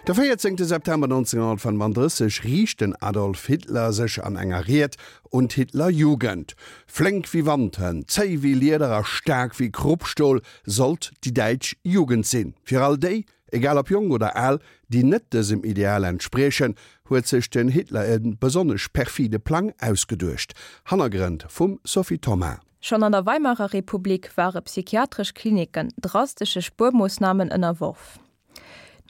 De 14 September 1935 riicht den Adolf Hitler sech an enger Ried un d'Hitlerjugend. Flénk wéi Wandhënn, zéi wéi Lieder a staark wéi Kruppstol sollt déi däitsch Jugend sinn. Fir all déi, egal ob jonk oder al, déi net dësem Ideal entspriechen, huet sech den Hitler e besonnesch perfide Plang ausgeduecht. Hannergrënn vum Sophie Thomas. Schonn an der Weimarer Republik ware psychiatresch Klinicken drastesche Spuermoossnamen ënnerworf.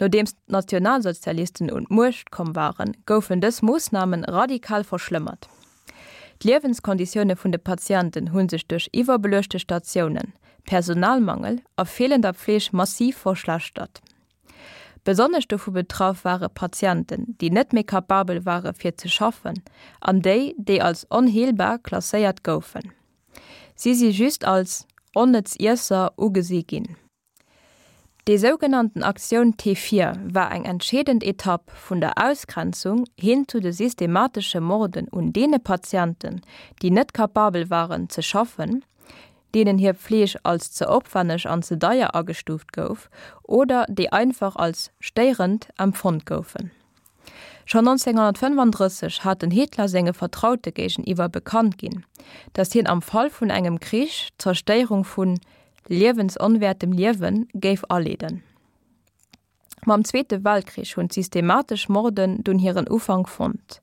Nodeems d'Nationalsozialisten un d'Muecht komm waren, goufen dës Moossname radikal verschlëmmert. D'Liewenskonditioune vun de Patienten hu sech duerch iwwerbeluechte Statiounen, Personalmangel a feelender Pfleeg massiv verschlechtert. Besonnesch dovu betraff ware Patienten, déi net méi kapabel ware fir ze schaffen an déi, déi als onheelbar klasséiert goufen. Si si just als onnëtz Iesser ugesi ginn. Déi sougenannten Aktioun T4 war eng entscheedend Etapp vun der Ausgrenzung hin zu de systematesche Morden un deene Patienten, déi net kapabel waren ze schaffen, deenen hir Pfleeg als ze opwenneg an ze deier agestuuft gouf oder déi einfach als stéierend empfonnt goufen. Schonn 1935 hat den Hitler senge Vertraute géigeniwwer bekannt ginn, datt hien am Fall vun engem Krich d'Zerstéierung vu liewensonwäertem Liewe géif aleeden. Mam Zweete Weltkrich hunn d'systematesch Morden dunn hiren Ufank fonnt.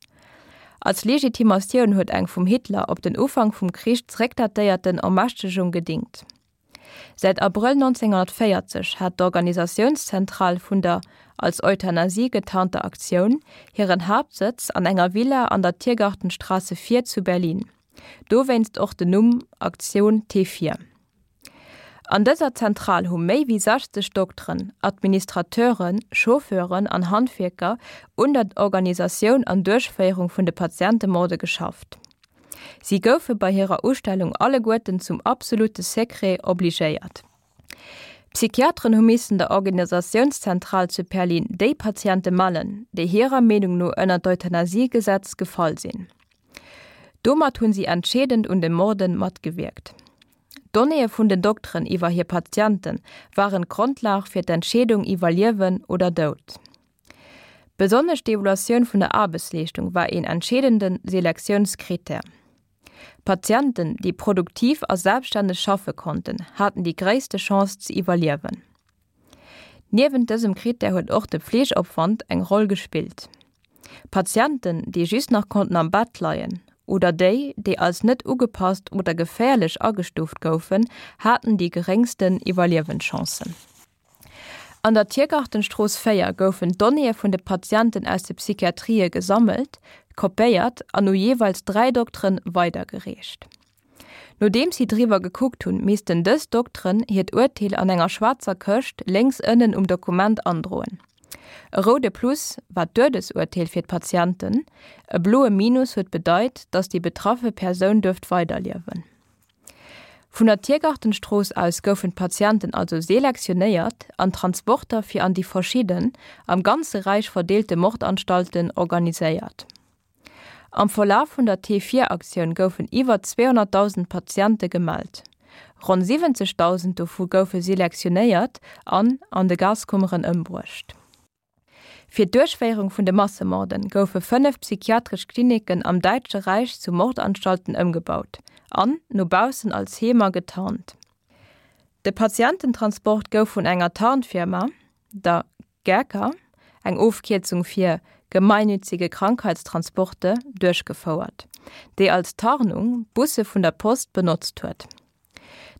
Als Legitimatioun huet eng vum Hitler op den Ufank vum Krich zeréckdatéierten Ermächtegung gedingt. Säit Abrëll 1940 hat d'Organisatiounszentral vun der als Euthanasie getarnter Aktioun hiren Haaptsëtz an enger Villa an der Tiergartenstraße 4 zu Berlin, dowéinst och den Numm Aktion T4. An dëser Zentral hu méi wéi 60 Dokteren, Administrateuren, Chauffeuren an Handwierker un der Organisatioun an Duerchféierung vun de Patientemorde geschafft. Si goufe bei hirer Ustellung alleguerten zum absolute Secret obligéiert. D'Psychiateren hu missen der Organisatiounszentral zu Perlin déi Patiente mellen, déi hirer Meenung no ënner d'Euthanasiegesetz gefall sinn. Domat hunn si entscheedend un de Morden matgewierkt. D'Donnéeë vun den Dokteren iwwer hir Patiente waren d'Grondlag fir d'Entscheedung iwwer Liewen oder Doud. Besonnesch d'Evaluatioun vun der Aarbechtsleeschtung war een entscheedende Selektiounskrittär. Patienten, déi produktiv a selbststänneg schaffe konnten, haten déi gréisste Chance ze iwwerliewen. Niewent dësem Krittär huet och de Pflegeopwand eng Roll gespillt. Patienten, déi just nach konnten am Bett leien oder déi, déi als net ugepasst oder geféierlech agestuuft goufen, haten déi geréngsten Iwwerliewenschancen. An der Tiergartenstrooss 4 goufen d'Donnéeë vun de Patienten aus de Psychiatrië gesammelt, kopéiert an u jeeweils 3 Dokteren weidergereecht. Nodeems si driwwer gekuckt hunn, missten dës Dokteren hiert Urteel an enger schwaarzer Këscht lénks ënnen um Dokument androen. E roude Plus war d'Duedesurteel fir d'Patienten, e bloe Minus huet bedeit, datt déi betraffe Persoun duerft weiderliewen. Vun der Tiergartenstrooss aus goufen d'Patienten also selektionéiert an Transporter fir an déi verschidden, am ganze Räich verdeelte Mordanstalten organiséiert. Am Verlaf vun der T-Vier-Aktioun goufen iwwer 200.000 Patiente gemellt. Ronn 70.000 dovu goufe selektionéiert an an de Gaskummeren ëmbruecht. Fir d'Duerchféierung vun de Massemorden goufe 5 psychiatresch Klinicken am Däitsche Räich zu Mordanstalten ëmgebaut an no baussen als Heemer getarnt. De Patiententransport gouf vun enger Tarnfirma, der GÄKA, eng Ofkierzung fir Gemeinnützige Krankheitstransporte, duerchgefouert, déi als Tarnung Busse vun der Post benotzt huet.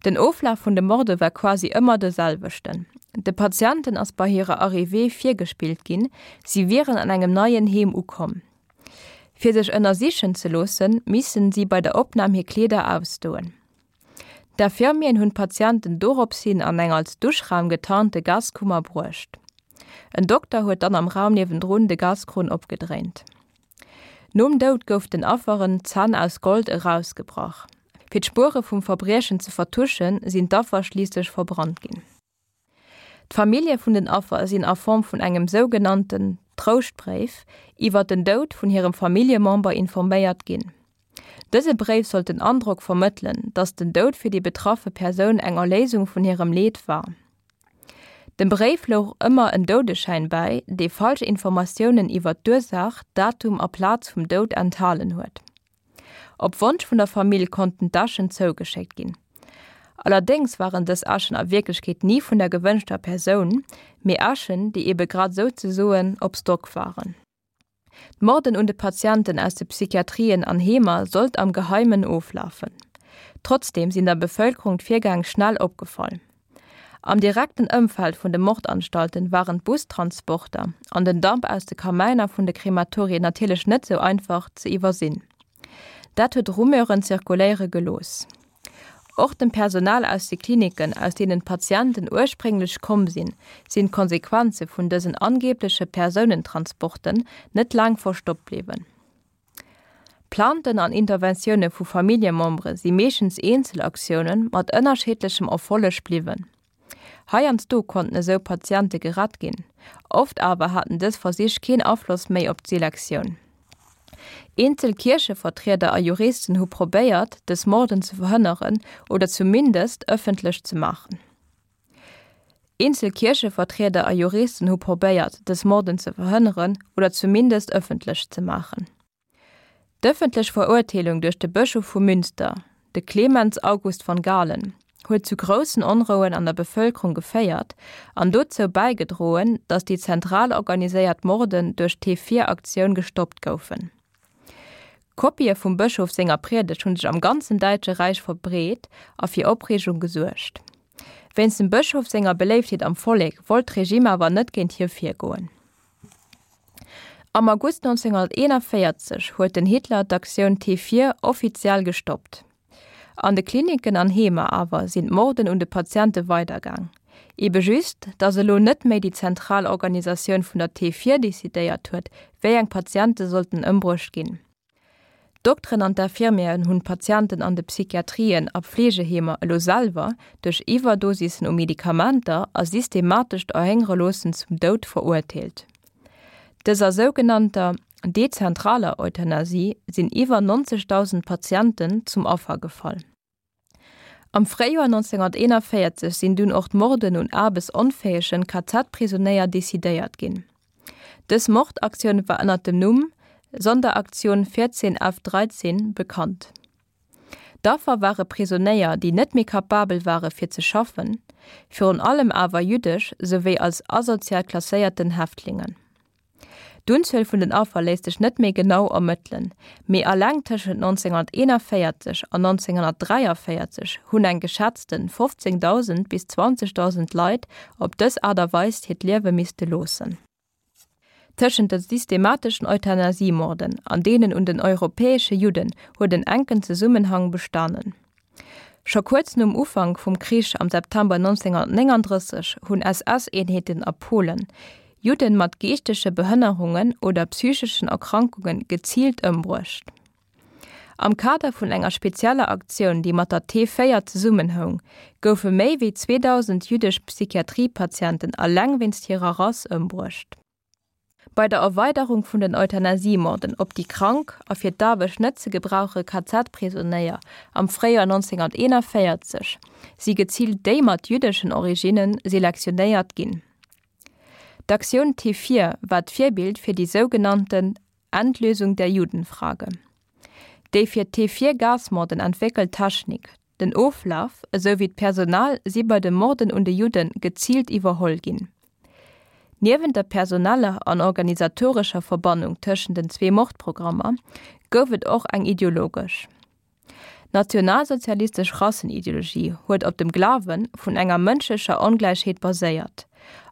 Den Oflaf vun de Morde war quasi ëmmer de selwechten, De Patienten ass bei hirer Arrivée virgespillt ginn, si wieren an engem neien Heem ukomm. Fir sech ënnersichen ze loossen, missten si bei der Opnam hir Kleeder ausdoen. D'Infirmieren hunn d'Patienten dorops hin an eng als Duschraum getarnte Gaskummer bruecht. En Dokter huet dann am Raum niewendrun de Gaskrunn opgedréint. Nom Doud gouf den Afferen d'Zänn aus Gold erausgebrach. Fir d'Spuere vum Verbriechen ze vertuschen, sinn d'Affer schliisslech verbrannt ginn. D'Famillje vun den Affer sinn a Form vun engem sougenannten Trouschtbréif iwwer den Doud vun hirem Familljemember informéiert ginn. Dëse Bréif sollt den Androck vermëttelen, datt den Doud fir déi betraffe Persoun eng Erléisung vun hirem Leed war. Dem Bréif louch ëmmer en Doudeschäin bäi, dee falsch Informatiounen iwwer d'Ursaach, Datum a Plaz vum Doud enthalen huet. Op Wonsch vun der Famill konnten d'Äschen zougeschéckt ginn. Allerdéngs waren dës Äschen a Wierklechkeet ni vun der gewënschter Persoun, mee Äschen, déi ebe grad souzesoen op Stock waren. D'Morden un de Patienten aus de Psychiatrien an Heemer sollt am Geheimen oflafen. Trotzdeem sinn der Bevëlkerung d'Virgäng schnell opgefall. Am direkten Ëmfeld vun de Mordanstalten waren d'Bustransporter an den Damp aus de Kamäiner vun de Krematorien natierlech net sou einfach ze iwwersinn. Dat huet Rumeuren zirkuléiere gelooss. Och dem Personal aus de Klinicken, aus deenen d'Patienten ursprénglech komm sinn, sinn d'Konsequenze vun dësen angeebleche Persounentransporten net laang verstoppt bliwwen. Plainten an Interventioune vu Familljemembere si meeschtens Eenzelaktioune mat ënnerscheedlechem Erfolleg bliwwen. Heiansdo konnten esou Patiente gerett ginn, oft awer haten dës Versich keen Afloss méi op d'Selektioun. Eenzel Kierchevertrieder a Juristen hu probéiert, dës Morden ze verhënneren oder zumindest ëffentlech ze maachen. Eenzel Kierchevertrieder a Juristen hu probéiert, dës Morden ze verhënneren oder zumindest ëffentlech ze maachen. D'ëffentlech Verurteelung duerch de Bëschof vu Münster, de Clemens August von Galen, huet zu groussen Onrouen an der Bevëlkerung geféiert an dozou bäigedroen, datt déi zentral organiséiert Morden duerch d'T-Vier-Aktioun gestoppt goufen. Kopië vum Bëschof senger Priedegt hu sech am ganzen Däitsche Räich verbreet a fir Opreegung gesuergt. Wéinst dem Bëschof senger Beléiftheet am Vollek wollt d'Regime awer net géint hie virgoen. Am August 1941 huet den Hitler d'Aktioun T4 offiziell gestoppt. An de Klinicken an Heemer awer sinn d'Morden un de Patiente weidergaang. Ebe just, datt elo net méi déi zentral Organisatioun vun der T4 decidéiert huet, wéi eng Patiente sollten ëmbruecht ginn. D'Dokteren an d'Infirmieren hunn d'Patienten an de Psychiatrien a Pflegeheemer elo selwer duerch Iwwerdosissen u Medikamenter a systematescht Erhéngereloossen zum Doud verurteelt. Dëser sougenannter dezentraler Euthanasie sinn iwwer 90.000 Patienten zum Affer gefall. Am Fréijoer 1941 sinn dunn och d'Morden un aarbechtsonfäegen KZ-Prisonéier decidéiert ginn. Dës Mordaktioun war ënner dem Numm Sonderaktion 14 F 13 bekannt. D'Affer ware Prisonéier, déi net méi kapabel ware fir ze schaffen, virun allem awer jüddesch souwéi als asozial klasséierten Häftlingen. D'Unzuel vun den Affer léisst sech net méi genau ermëttelen, mee alleng tëschent 1941 an 1943 hunn eng geschätzte 15.000 bis 20.000 Leit op dës Aart a Weis hiert Liewe misste loossen. Tëschent de systemateschen Euthanasiemorden an deenen un den europäesche Judden huet en enken Zesummenhang bestanen. Scho kuerz nom Ufank vum Krich am September 1939 hunn SS-Eenheeten a Polen Judden mat geeschtege Behënnerungen oder psycheschen Erkrankunge geziilt ëmbruecht. Am Kader vun enger spezieller Aktioun, déi mat der T4 zesummenhoung, goufe méi wéi 2.000 jüddesch Psychiatriepatienten alleng wéinst hirer Rass ëmbruecht. Bei der Erweiderung vun den Euthanasiemorden op déi krank a fir d'Aarbecht net ze gebrauche KZ-Prisonéier am Fréijoer 1941 si geziilt déi mat jüddeschen Originne selektionéiert ginn. D'Aktioun T4 war d'Virbild fir déi sougenannten Endlösung der Judenfrage. Déi fir d'T4-Gasmorden entwéckelt Technik, den Oflaf esou wéi d'Personal si bei de Morden un de Judde geziilt iwwerholl ginn. Niewent der personeller an organisatorescher Verbannung tëschent den zwee Mordprogrammer gouf et och eng ideologesch. D'nationalsozialistesch Rassenideologie huet op dem Glawe vun enger mënschlecher Ongläichheet baséiert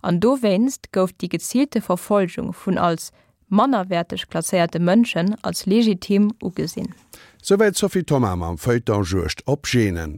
an dowéinst gouf déi geziilte Verfolgung vun als mannerwäerteg klasséierte Mënschen als legitim ugesinn. Souwäit d'Sophie Thoma mam Feuilleton Juegd op Genen.